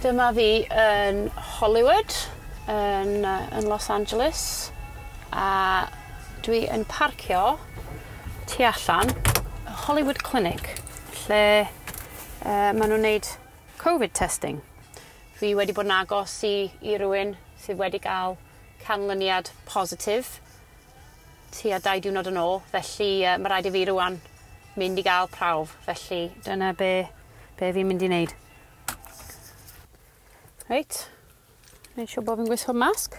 Dyma fi yn Hollywood, yn Los Angeles, a dwi yn parcio tu allan Hollywood Clinic, lle maen nhw'n neud Covid testing. Fi wedi bod yn agos i rywun sydd wedi cael canlyniad positif tua 2 diwrnod yn ôl, felly mae rhaid i fi rwan mynd i gael prawf, felly dyna be fi'n mynd i wneud. Reit, wneud siŵr bod fi'n gwisgo masg.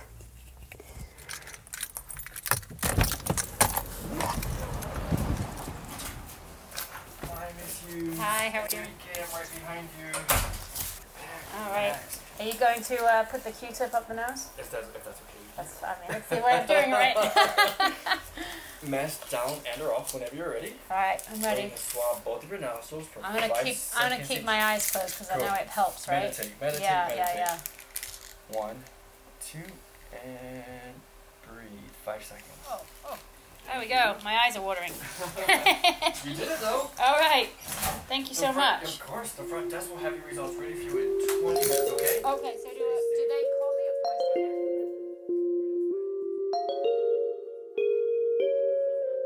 Hi, Miss Hughes. Hi, how are you? Cam right behind you. All right. Are you going to put the Q-tip up the nose? If that's okay. That's, I mean, it's the way of doing it, right? Mask down and or off whenever you're ready. All right, I'm ready. So swab both of your nostrils for I'm gonna 5 keep. seconds. I'm gonna keep my eyes closed because I know it helps, right? Meditate, meditate, yeah, meditate. Yeah. 1, 2, and breathe. 5 seconds. Oh. There we go. My eyes are watering. You did it though. All right. Thank you so much. Of course, the front desk will have your results ready for you in 20 minutes. Okay. Okay. So do they call me or do I stay there?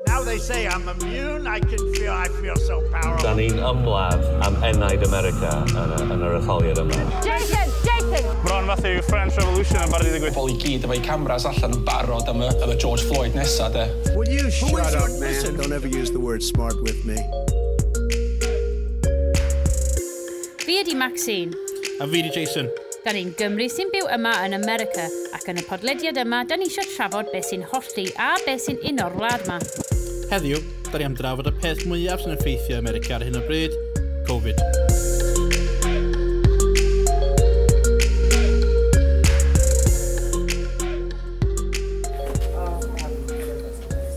Now they say I'm immune. I feel so powerful. Da ni'n ymladd am enaid America yn yr etholiad yma. Jason! Jason! Bron fath yw French Revolution yn barod i ddigwydd. Pobl i gyd efo'u cameras allan yn barod am y George Floyd nesa, de. Will you shut up, man? Listen, don't ever use the word smart with me. Fi ydi Maxine. A fi ydi Jason. Da ni'n Gymru sy'n byw yma yn America, ac yn y podlediad yma, da ni eisiau trafod beth sy'n hollti a beth sy'n uno'r wlad yma. Heddiw, da ni am drafod y peth mwyaf sy'n effeithio America ar hyn o bryd, Covid.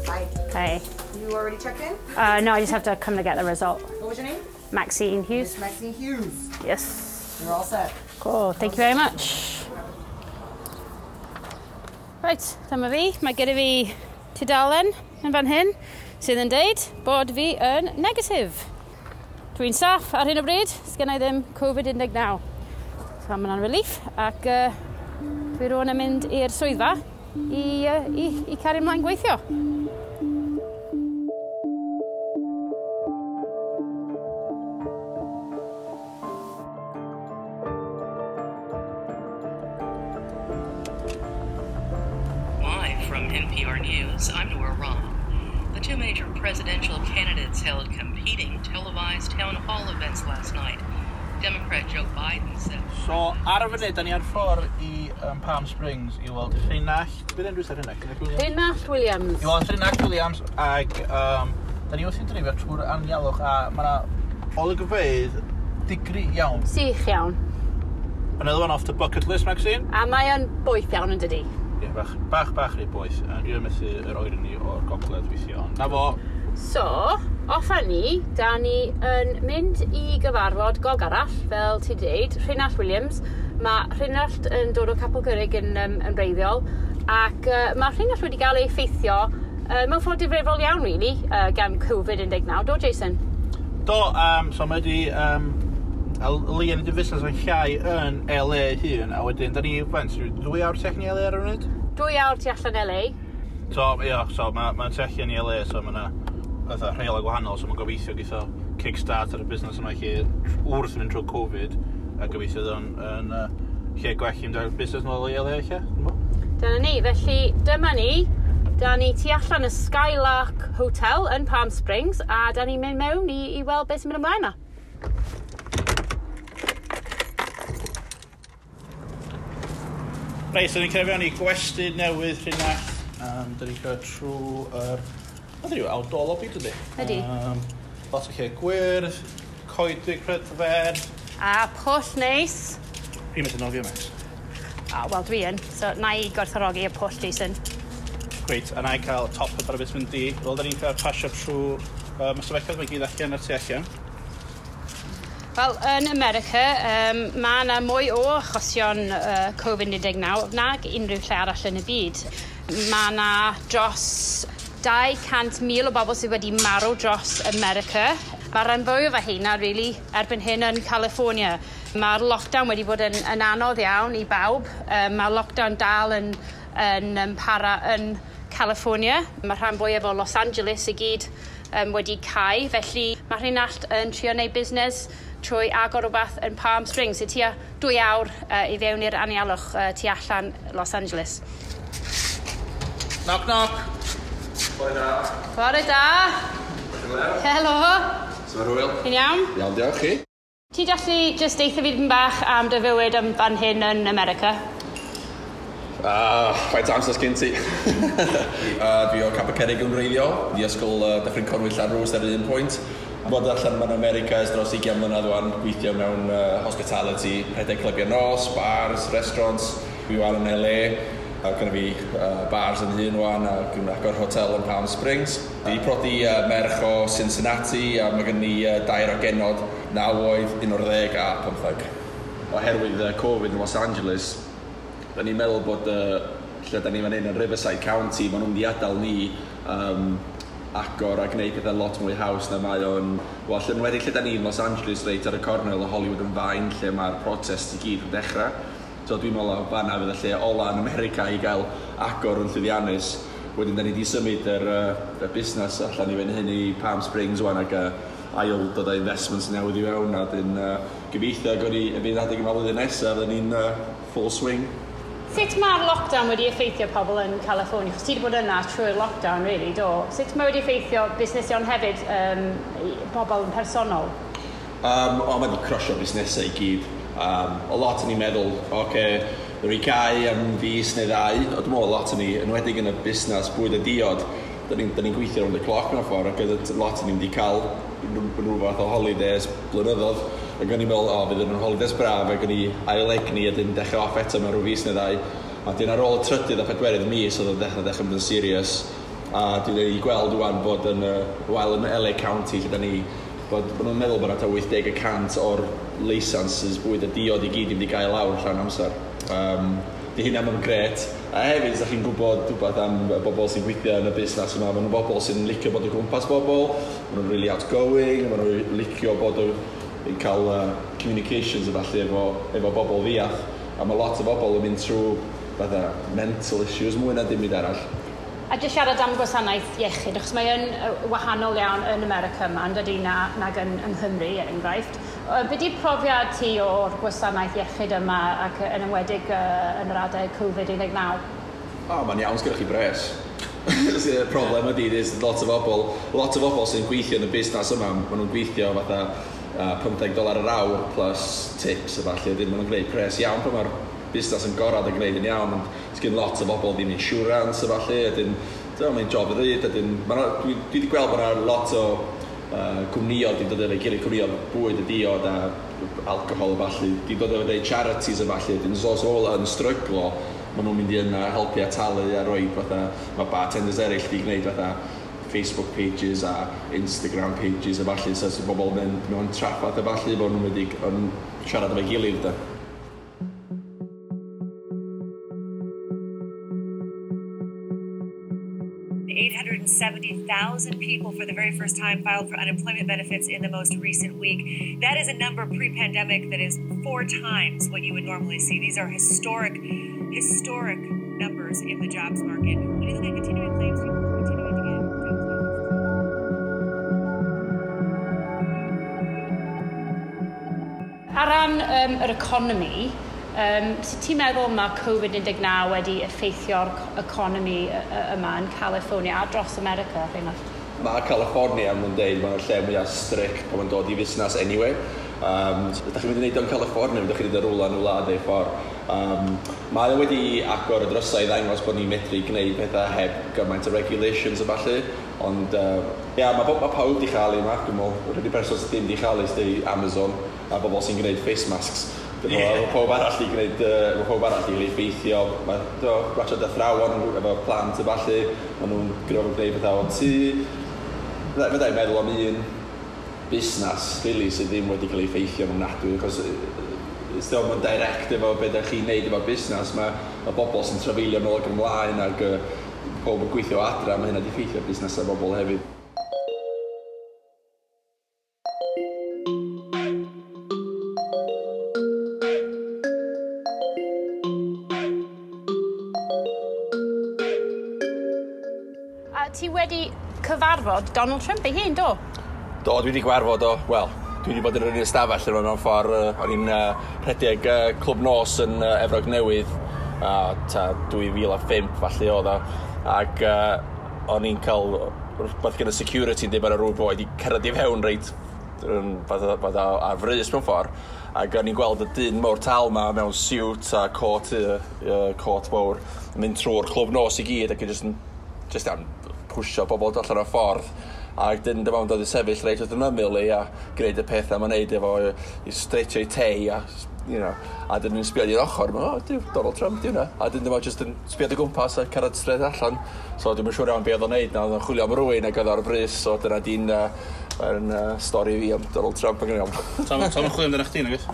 Hi. Hey. You already checked in? No, I just have to come to get the result. What was your name? Maxine Hughes. Miss Maxine Hughes. Yes. You're all set. Cool, thank you very much. Right, dyma fi. Mae gyda fi tudalen yn fan hyn sydd yn deud bod fi yn negatif. Dwi'n saff ar hyn o bryd, sgen i ddim Covid-19. So mae hwnna'n relief ac dwi rŵan yn mynd i'r swyddfa i cario ymlaen gweithio. Live from NPR News, I'm Nora Rahm. The two major presidential candidates held competing televised town hall events last night. Democrat Joe Biden said... So, ar y funud, da ni ar ffordd i Palm Springs i weld Rheinallt... Beth enw sy'n Rheinallt? Rheinallt Williams. I weld Rheinallt Williams, ac da ni wrthi'n dreifio trwy'r anialwch, a mae yna olygfeydd digri iawn. Sych iawn. Another one off the bucket list, Maxine. A mae o'n boeth iawn yn dydi? Ie, bach rhy boeth. Dwi'n methu yr oerni o'r gogledd weithio, ond na fo. So, off â ni, da ni yn mynd i gyfarfod gog arall, fel ti dweud, Rheinallt Williams. Mae Rheinallt yn dod o Capel Curig yn wreiddiol, ac mae Rheinallt wedi cael ei effeithio mewn ffordd difrifol iawn, really, gan Covid-19. Do, Jason? Do, so mae wedi... Lee yn y busnes yn llai yn LA hun, a wedyn, da ni, faint, 2 awr tu allan i LA ar y funud? 2 awr tu allan LA. So, ie, so mae'n tu allan i LA, so mae yna fatha rheolau gwahanol, so mae'n gobeithio geith o kickstart ar y busnes yma lle wrth mynd trwy Covid, a gobeithio yn lle gwell i mynd ar busnes nôl i LA lle. Dyna ni, felly dyma ni, da ni tu allan y Skylark Hotel yn Palm Springs, a da ni'n mynd mewn i weld beth sy'n mynd ymlaen yma. Reit, so ni'n cyrraedd fewn i gwesty newydd Rheinallt. Da ni'n cyrraedd trwy'r... Mae'n rhyw outdoor lobby, dydy? Ydy. Lot o lle gwyrdd, coedwig prydferth. A pwll neis. Fi'n methu nofio, Max. Wel, dwi yn. So, na i gwerthfawrogi y pwll, Jason. Great, a na i cael top up ar y beth mynd di. Wel, da ni'n cael pasio trwy... Mae stafelloedd mae gyd allan ar tu allan. Wel, yn America, mae yna mwy o achosion Covid-19 nag unrhyw lle arall yn y byd. Mae yna dros 200,000 o bobl sydd wedi marw dros America. Mae rhan fwyaf o heina, really, erbyn hyn yn California. Mae'r lockdown wedi bod yn anodd iawn i bawb. Mae'r lockdown dal yn para yn California. Mae rhan fwyaf o Los Angeles i gyd wedi cau, felly mae Rheinallt yn trio wneud busnes trwy agor rhywbeth yn Palm Springs, sy'n tua 2 awr i fewn i'r anialwch tu allan Los Angeles. Knock, knock. Bore da. Bore da. Helo. Sut mae'r hwyl? Ti'n iawn? Iawn, diolch chi. Ti'n gallu jyst deitha fi dipyn bach am dy fywyd yn fan hyn yn America? Ah, faint amser sgyn ti? Dwi o Capel Curig yn wreiddiol, di ysgol Dyffryn Conwy Llanrwst ar un pwynt. Bod allan mewn America ers dros 20 mlynedd wan, gweithio mewn hospitality, rhedeg clybiau nos, bars, restaurants. Dwi wan yn LA, a gynna fi bars yn hun wan, a dwi'n agor hotel yn Palm Springs. Dwi 'di prodi merch o Cincinnati, a mae gen i 2 o genod, 9 oed, 11 a 15. Oherwydd Covid yn Los Angeles, da ni'n meddwl bod lle da ni fan hyn yn Riverside County, maen nhw'n mynd i adael ni agor a gwneud pethau lot mwy haws na mae o'n... Wel, lle, enwedig lle da ni yn Los Angeles, reit ar y cornel o Hollywood and Vine, lle mae'r protest i gyd yn dechrau. So dwi'n meddwl o fanna fydd y lle ola yn America i gael agor yn llwyddiannus. Wedyn da ni wedi symud y busnes allan i fan hyn i Palm Springs wan ac ail dod â investments newydd i fewn, a dyn gobeithio gawn ni y bydd adeg yma flwyddyn nesaf, fydden ni'n full swing. Sut mae'r lockdown wedi effeithio pobl yn California? Chos ti wedi bod yna trwy'r lockdown, really, do? Sut mae wedi effeithio busnesion hefyd, bobl yn personol? O, mae wedi crusho busnesau i gyd. O lot o'n i'n meddwl, oce, okay, rwy cau am fis neu ddau. O, dwi'n meddwl lot o'n i, enwedig yn y busnes bwyd a diod, da ni'n gweithio rownd y cloc mewn ffordd, ac oedd lot o'n i'n wedi cael rhyw fath o holidays blynyddoedd. Ac o'n i'n meddwl, o, fydd yn holidays braf, ac o'n i ail egni a dyn dechrau off eto mewn rhyw fis neu ddau. A dyn ar ôl y trydydd a pedwerydd mis oedd o'n dechrau mynd yn serious. A dwi wedi gweld wan bod yn, wel, yn LA County, lle da ni, bod maen nhw'n meddwl bod yna 80% o'r licenses bwyd a diod i gyd i mynd i gael lawr llawn amser. Di hynna mae'n gret. A hefyd, os chi'n gwybod rhywbeth am y bobl sy'n gweithio yn y busnes yma, maen nhw'n bobl sy'n licio bod o gwmpas bobl, maen nhw'n really outgoing, maen nhw'n licio bod o yn cael communications a falle efo bobl ddiath. A mae lot o bobl yn mynd trwy fatha mental issues mwy na dim byd arall. A jyst siarad am gwasanaeth iechyd, achos mae yn wahanol iawn yn America yma, yn dydi, nag yng Nghymru, er enghraifft. Be 'di profiad ti o'r gwasanaeth iechyd yma ac yn enwedig yn yr adeg Covid-19? O, mae'n iawn, sgynnoch chi bres. Y problem ydy, there's lot o bobl sy'n gweithio yn y busnes yma, maen nhw'n gweithio fatha $15 yr awr plus tips a falle, maen nhw'n gwneud pres iawn pan mae'r busnes yn gorad a gwneud yn iawn, ond sgyn lot o bobl ddim insurance a falle, a dyn, mae'n job ddrud, a dyn, dwi wedi gweld bod yna lot o cwmnïoedd wedi dod efo'i gilydd, cwmnïoedd bwyd a diod a alcohol a falle, wedi dod efo deud charities a falle, dyn os ola yn stryglo, maen nhw'n mynd i yna helpu a talu a rhoi fatha, mae bartenders eraill wedi gwneud fatha Facebook pages a Instagram pages a falle, so sy'n bobl yn mynd mewn traffath a falle, bod nhw'n wedi siarad efo'i gilydd da. 870,000 people for the very first time filed for unemployment benefits in the most recent week. That is a number pre-pandemic that is 4 times what you would normally see. These are historic numbers in the jobs market. When you look at continuing claims, people are continuing to get jobs benefits. Ar ran yr economi, sut ti'n meddwl mae Covid-19 wedi effeithio'r economi yma yn California a dros America, Rheinallt? Mae California, maen nhw'n deud, mae'n lle mwyaf strict pan mae'n dod i fusnes anyway. Ydych chi'n mynd i wneud o'n California, ydych chi'n mynd i rwla yn y wlad ei ffordd. Mae o wedi agor y drysau i ddangos bod ni'n medru gwneud pethau heb gymaint o regulations a ballu. Ond ia, mae pawb wedi chael ei yma, dwi'n meddwl. Yr unig person sydd ddim wedi chael ei sydd Amazon a bobl sy'n gwneud face masks. Mae pawb arall i gwneud, mae pawb arall i effeithio. Mae ratio athrawon efo plant a ballu, maen nhw'n gwneud pethau o tŷ. Fydda i'n meddwl am un busnes, really, sydd ddim wedi cael ei effeithio yn ofnadwy, achos mae'n direct efo beth ydych chi'n neud efo busnes, mae bobl sy'n trafeilio nôl ac ymlaen ac pob yn gweithio adra, mae hynna wedi effeithio busnesau bobl hefyd. ti wedi cyfarfod Donald Trump ei hun, do? Do, dwi wedi gwarfod o, wel, dwi wedi bod yn yr un ystafell yma mewn ffordd. O'n i'n rhedeg clwb nos yn Efrog Newydd, ta 2005 falle oedd o. Ac o'n i'n cael rhywbeth gyda security yn dweud bod rhyw boi wedi cyrraedd i fewn reit fatha ar frys mewn ffordd. Ac o'n i'n gweld y dyn mawr tal ma mewn siwt a cot mawr yn mynd trwy'r clwb nos i gyd ac yn just am pwysio bobl allan o'r ffordd. Ac dyn dyma o'n dod i sefyll reit wrth yn ymyl i a gwneud y pethau mae'n neud efo i streitio i tei a, a dyn nhw'n sbio i'r ochr, oh, diw, Donald Trump, di hwnna. A dyn dyma just yn sbio o gwmpas a cyrraedd straight allan. So dwi'n siŵr iawn be oedd o'n neud, na oedd o'n chwilio am rywun ac oedd ar frys, so dyna di'n stori fi am Donald Trump yn iawn. Tom yn chwilio amdano chdi, nag oes?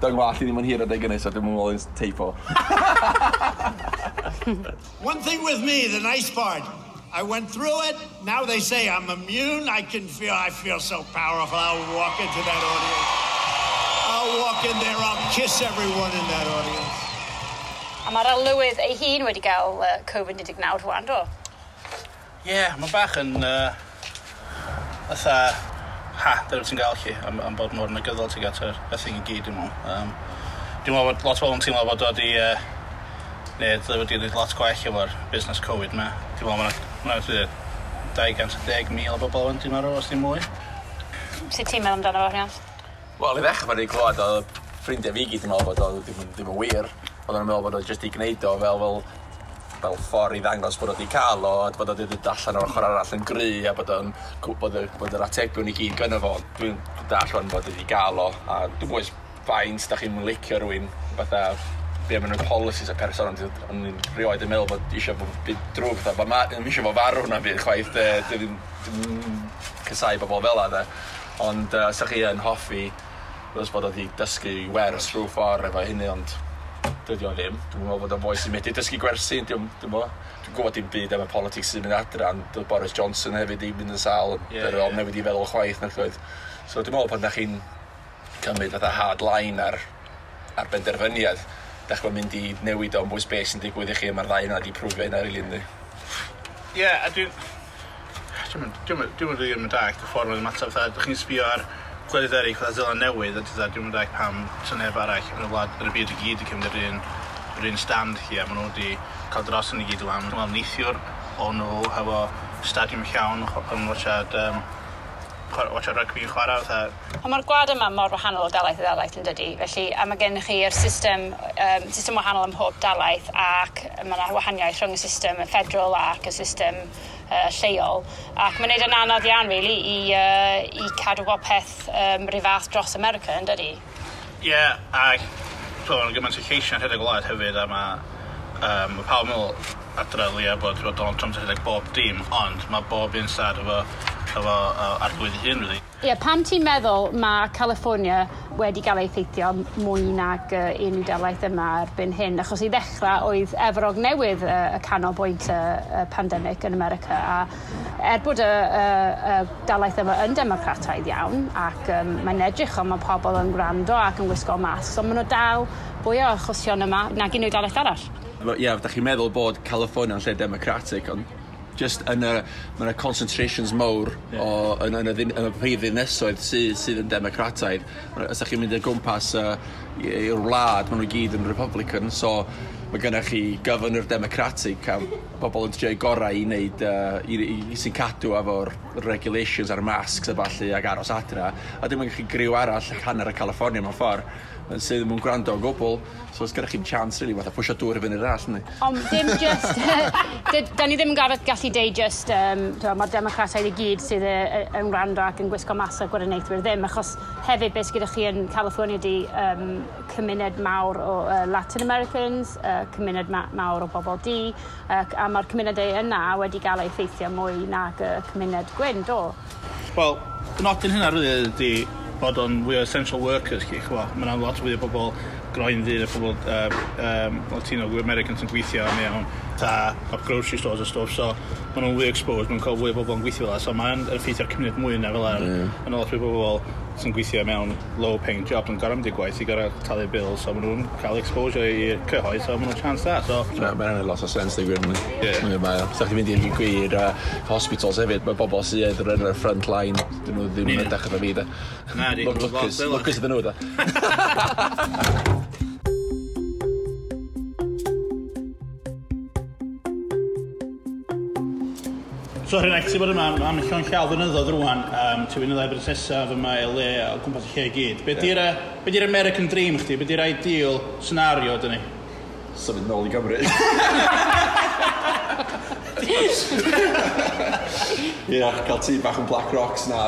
Do'n gwallt i ddim yn hir adeg hynny, so dwi'n meddwl yn teipo. One thing with me, the nice part, I went through it. Now they say I'm immune. I feel so powerful. I'll walk into that audience. I'll walk in there. I'll kiss everyone in that audience. A mae'r arlywydd ei hun wedi cael Covid-19 rwan, do? Ie, yeah, mae bach yn fatha, ha, dyna ti'n gael chi, am bod mor negyddol ti'n gael y thing i gyd, dwi'n meddwl. Dwi'n meddwl bod lot o bobl yn teimlo bod o wedi, neu wedi gwneud lot gwell efo'r busnes Covid ma. Dwi'n meddwl mae'n 210,000 o bobl yn dwi'n marw, os ddim mwy. Sut ti'n meddwl amdano fo, Rhian? Wel, i ddechrau pan i'n clywed oedd ffrindiau fi gyd yn meddwl bod o ddim yn wir. Oedden nhw'n meddwl bod o jyst i gwneud o fel ffordd i ddangos bod o wedi cael o, a bod o wedi dod allan o'r ochr arall yn gry, a bod o'n bod yr atebion i gyd gynno fo. Dwi'n dall o'n bod wedi gael o, a dwi'n bwys faint da chi'n licio rhywun, fatha be maen nhw'n policies y person, ond o'n i'n rioed yn meddwl bod eisiau bod byd drwg, fatha, bod ddim eisiau bod farw na byd chwaith, dwi'n casau bobl fel 'na, de. Ond sa chi yn hoffi, os bod o wedi dysgu wers rhyw ffordd efo hynny, ond dydy o ddim. Dwi'n meddwl bod o'n foi sy'n medru dysgu gwersi, dwi'n gwybod dim byd am y politics sy'n mynd adra, ond Boris Johnson hefyd i mynd yn sâl, yeah, yeah. Newid i feddwl chwaith, nac oedd. So dwi'n meddwl pan da chi'n cymryd fatha hard line ar benderfyniad, da chi'n mynd i newid o'n bwys beth sy'n digwydd i chi, mae'r ddau yna wedi prwfio hynna, rili, yndi. Ie, a dwi'n rili yn dallt y ffordd mae'n ymateb, fatha, dych chi'n sbio ar gwledydd eraill, fatha Seland Newydd, a dwi'n mynd pam sy'n neb arall yn y wlad, yn y byd i gyd i cymryd yr un stand chi, a maen nhw wedi cael dros yn i gyd o'n. Dwi'n meddwl neithiwr o'n nhw hefo stadiwm llawn yn watchad rygbi yn chwarae. Fatha. Ond mae'r gwlad yma mor wahanol o dalaith i dalaith yn dydy, felly a mae gennych chi'r system wahanol ym mhob dalaith, ac mae yna wahaniaeth rhwng y system y federal ac y system lleol, ac mae'n neud yn anodd iawn really, i cadw bob peth rhyw fath dros America, yn dydy? Ie, yeah, ac mae'n gymaint o lleisiau'n rhedeg o wlad hefyd, a mae pawb yn meddwl adra leia bod Donald Trump yn rhedeg bob dim, ond mae bob un stad efo arglwydd ei hun, really. Ie, yeah, pam ti'n meddwl mae California wedi cael ei effeithio mwy nag unrhyw dalaith yma erbyn hyn? Achos i ddechrau oedd Efrog Newydd y canolbwynt y pandemig yn America, a bod y dalaith yma yn democrataidd iawn, ac mae'n edrych ond mae pobl yn gwrando ac yn gwisgo masks, ond maen nhw dal fwy o achosion yma nag unrhyw dalaith arall. Ie, yeah, da chi'n meddwl bod California yn lle democratic, ond just yn y, mae yna concentrations mawr o, yn y prif ddinasoedd sydd yn democrataidd. Os ydych chi'n mynd o gwmpas i'r wlad, maen nhw gyd yn Republican, so mae gennych chi governor democratic a bobl yn trio'u gorau i wneud, i sy'n cadw efo'r regulations a'r masks a ballu ac aros adra. A dim ond chi griw arall hanner y California mewn ffordd sydd ddim yn gwrando o gwbl, so os gennych chi'n chance, really, fatha pwysio dŵr i fyny'r all, yndi? Ond dim just, da ni ddim yn gallu deud just, mae'r democrataidd i gyd sydd yn gwrando ac yn gwisgo masg a gwirioneithwyr ddim, achos hefyd beth gyda chi yn California di cymuned mawr o Latin Americans, cymuned mawr o bobl du, a mae'r cymunedau yna wedi gael ei effeithio mwy nag y cymuned gwyn, do? Wel, nodyn hynna rili ydi bod o'n fwy o essential workers chi, chwa. Mae yna lot fwy o bobl groen ddu, a pobl Latino, Americans yn gweithio mewn ta grocery stores a stuff, so maen nhw'n fwy exposed, maen nhw'n cael fwy o bobl yn gweithio fel 'na, so mae'n effeithio'r cymuned mwy yna fel 'na. Yna lot fwy o bobl sy'n gweithio mewn low paying job yn gorau mynd i gwaith i gorau talu bills, so maen nhw'n cael exposure i'r cyhoedd, so maen nhw'n chance da. So, Mae'n anodd lot o sens, dwi'n gwir. Ie. Mae o. Sa chdi'n mynd i'r gwir hospitals hefyd, mae bobl sydd yn y front line, dyn nhw ddim yn edrych efo fi, da. Na, di. Lwcus, lwcus ydyn nhw, da. So Rhynach, ti bod yma am llon llaw flynyddoedd rwan, ti'n mynd i ddau brosesaf yma LA o gwmpas y lle i gyd. Be di'r be di'r American Dream chdi? Be di'r ideal scenario dyn ni? Symud nôl i Gymru. Ie, yeah, cael tŷ bach yn Black Rocks na.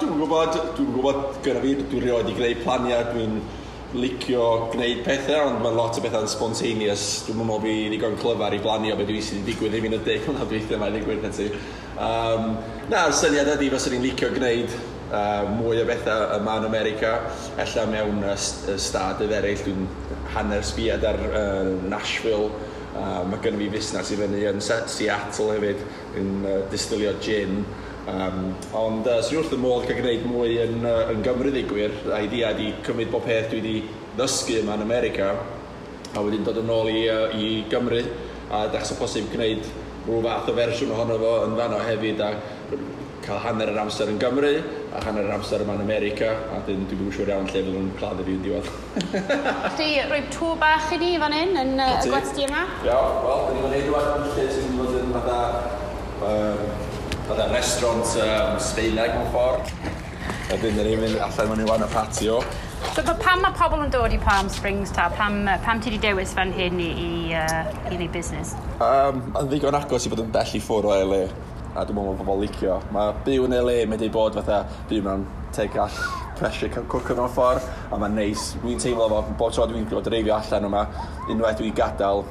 Dwi'n gwybod, dwi'n gwybod gyda fi, dwi'n rioed i greu planiau, dwi'n licio gwneud pethau, ond mae lot o bethau'n spontaneous. Dwi'n meddwl fi ddigon clyfar i blanio beth dwi sydd wedi digwydd i fi yn y 10 mlynedd dwytha yma i ddigwydd na ti. Na'r syniad ydy fyswn i'n licio gwneud mwy o bethau yma yn America, ella mewn stadydd eraill, dwi'n hanner sbiad ar Nashville. Mae gynnu fi fusnes i fyny yn Seattle hefyd, yn distilio gin. Ond swn i wrth y modd cael gwneud mwy yn Gymru ddigwyr. Idea ydi cymryd bob peth dwi wedi ddysgu yma yn America a wedyn dod yn ôl i Gymru a dechrau posib gwneud rhyw fath o fersiwn ohono fo yn fanno hefyd a cael hanner yr amser yn Gymru a hanner yr amser yma yn America a dyn dwi'n yn siŵr iawn lle fydd nhw'n claddu fi yn diwedd. Chi rhoi tŵr bach i ni fan hyn yn y gwesty yma? Ia, wel, dyn ni fan hyn rwan lle sy'n fod yn fatha restaurant Sbaeneg mewn ffordd. A dyn ni'n mynd allan mewn i wan y patio. So pam mae pobl yn dod i Palm Springs ta? Pam ti wedi dewis fan hyn i wneud busnes? Mae'n ddigon agos i fod yn bell i ffwrdd o LA. A dwi'n meddwl bod pobl licio. Mae byw yn LA wedi bod fatha byw mewn take-all pressure cooker mewn ffordd. A mae'n neis. Dwi'n teimlo fo, bob tro dwi'n dreifio allan yma, unwaith dwi'n gadael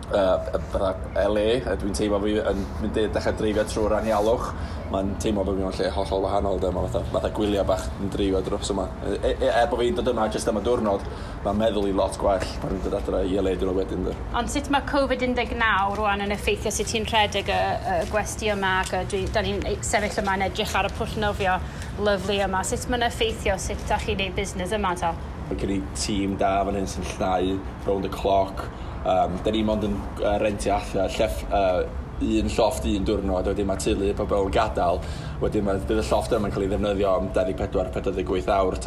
fatha LA, a dwi'n teimlo fi yn mynd i dechrau dreifio trwy'r anialwch. Mae'n teimlo bod fi mewn lle hollol wahanol, de. Mae fatha gwyliau bach yn dreifio dros yma. Er bod fi'n dod yma jyst am y diwrnod, mae'n meddwl i lot gwell pan dwi'n dod adre i LA diwrnod wedyn. De. Ond sut mae Covid-19 rwan yn effeithio sut ti'n rhedeg y gwesty yma, ac da ni'n sefyll yma yn edrych ar y pwll nofio lyfli yma. Sut mae'n effeithio sut da chi'n neud busnes yma ta? Mae gen i tîm da fan hyn sy'n llnau round the clock. Da ni mond yn rentio allan un llofft un diwrnod, wedyn mae teulu pobl yn gadael, wedyn bydd y llofft yma'n cael ei ddefnyddio am 24-48 awr.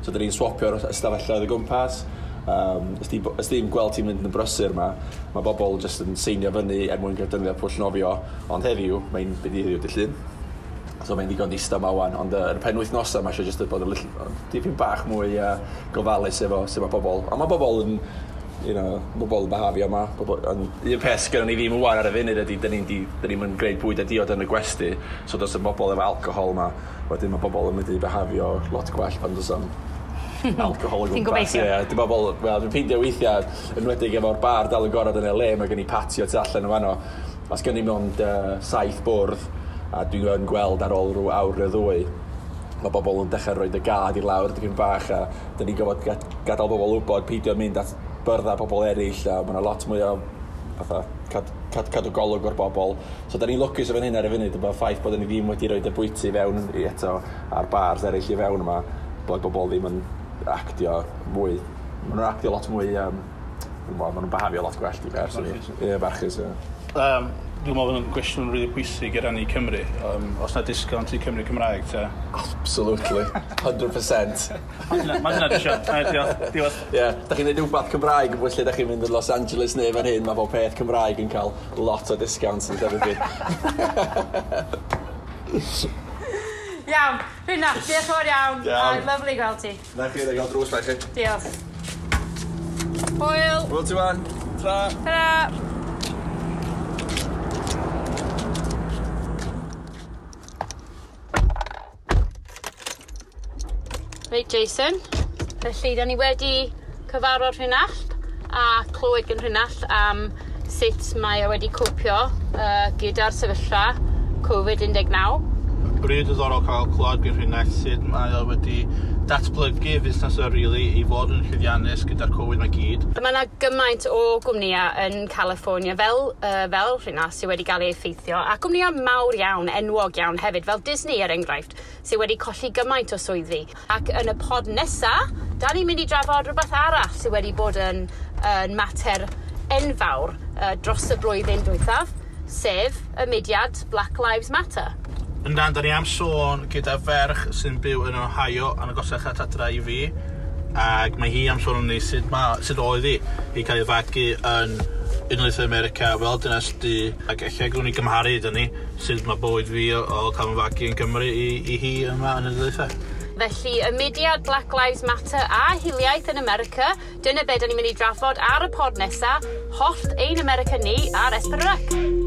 So da ni'n swapio'r ystafelloedd o gwmpas. Ys di'n gweld ti'n mynd yn brysur yma, mae bobl jyst yn seinio fyny er mwyn cael defnyddio pwll nofio, ond heddiw, mae'n byd i heddiw dydd Llun. So mae'n ddigon distaw yma wan, ond yn y penwythnosau mae eisiau jyst bod yn dipyn bach mwy gofalus efo sut mae bobl. Ond mae bobl yn, bobl yn behafio yma. Un peth gynnon ni ddim wan ar y funud ydy, dyn ni'n mynd gwneud bwyd a diod yn y gwesty, so does y bobl efo alcohol yma, wedyn mae bobl yn mynd i behafio lot gwell pan does am alcohol o gwmpas. Ti'n gobeithio? Ie, yeah, bobl, wel, dwi'n peindio weithiau, enwedig efo'r bar dal yn gorod yn LA, mae gen i patio tu allan yn fanno. Os gen i mond 7 bwrdd, a dwi'n gweld ar ôl rhyw awr neu ddwy, mae bobl yn dechrau rhoi y gad i lawr dipyn bach, a dyn ni'n gorfod gadael bobl wybod peidio mynd at byrddau pobl eraill, a mae yna lot mwy o fatha, cadw golwg o'r bobl. So da ni'n lwcus o fan hyn ar y funud, y ffaith bod ni ddim wedi rhoi y bwyty fewn i eto a'r bars eraill i fewn yma, bod bobl ddim yn actio mwy. Maen nhw'n actio lot mwy, maen nhw'n behafio lot gwell i fer. Ie, barchus, ie. Dwi'n meddwl bod yn gwestiwn rili pwysig i rannu Cymru. Os na disgownt i Cymru Cymraeg, ta? Absolutely, 100%. Mae hynna disio. Diolch. Ie, da chi'n neud rhywbeth Cymraeg yn fwy lle da chi'n mynd yn Los Angeles neu fan hyn, mae bob peth Cymraeg yn cael lot o discounts yn llefydd fi. Iawn, Rhynach, diolch yn fawr iawn. Iawn. Lovely gweld ti. Na chi, da gael drws na chi. Diolch. Hwyl. Hwyl ti wan. Tra. Tra. Reit, Jason. Felly, da ni wedi cyfarfod Rhynach a clywed gan Rhynach am sut mae o wedi copio gyda'r sefyllfa Covid-19. Rili diddorol cael clywed gan Rhynach sut mae o wedi Datblygu fusnes o really i fod yn llwyddiannus gyda'r Covid mae gyd. Mae yna gymaint o gwmnïau yn California fel rhywna sydd wedi cael ei effeithio, a gwmnïau mawr iawn, enwog iawn hefyd, fel Disney er enghraifft, sydd wedi colli gymaint o swyddi. Ac yn y pod nesa, da ni'n mynd i drafod rhywbeth arall sydd wedi bod yn mater enfawr dros y blwyddyn dwythaf, sef y mudiad Black Lives Matter. Yndan, da ni am sôn gyda ferch sy'n byw yn Ohio yn agosach at adra i fi, ac mae hi am sôn ni sut oedd hi i cael ei fagu yn Unol Daleithiau America fel dynes du, ac ella gwnawn ni gymharu dyn ni sut mae bywyd fi o cael fy fagu yn Gymru i hi yma yn y Daleithiau. Felly, y mudiad Black Lives Matter a hiliaeth yn America, dyna be da ni'n mynd i drafod ar y pod nesa, Hollt ein America ni ar S4C.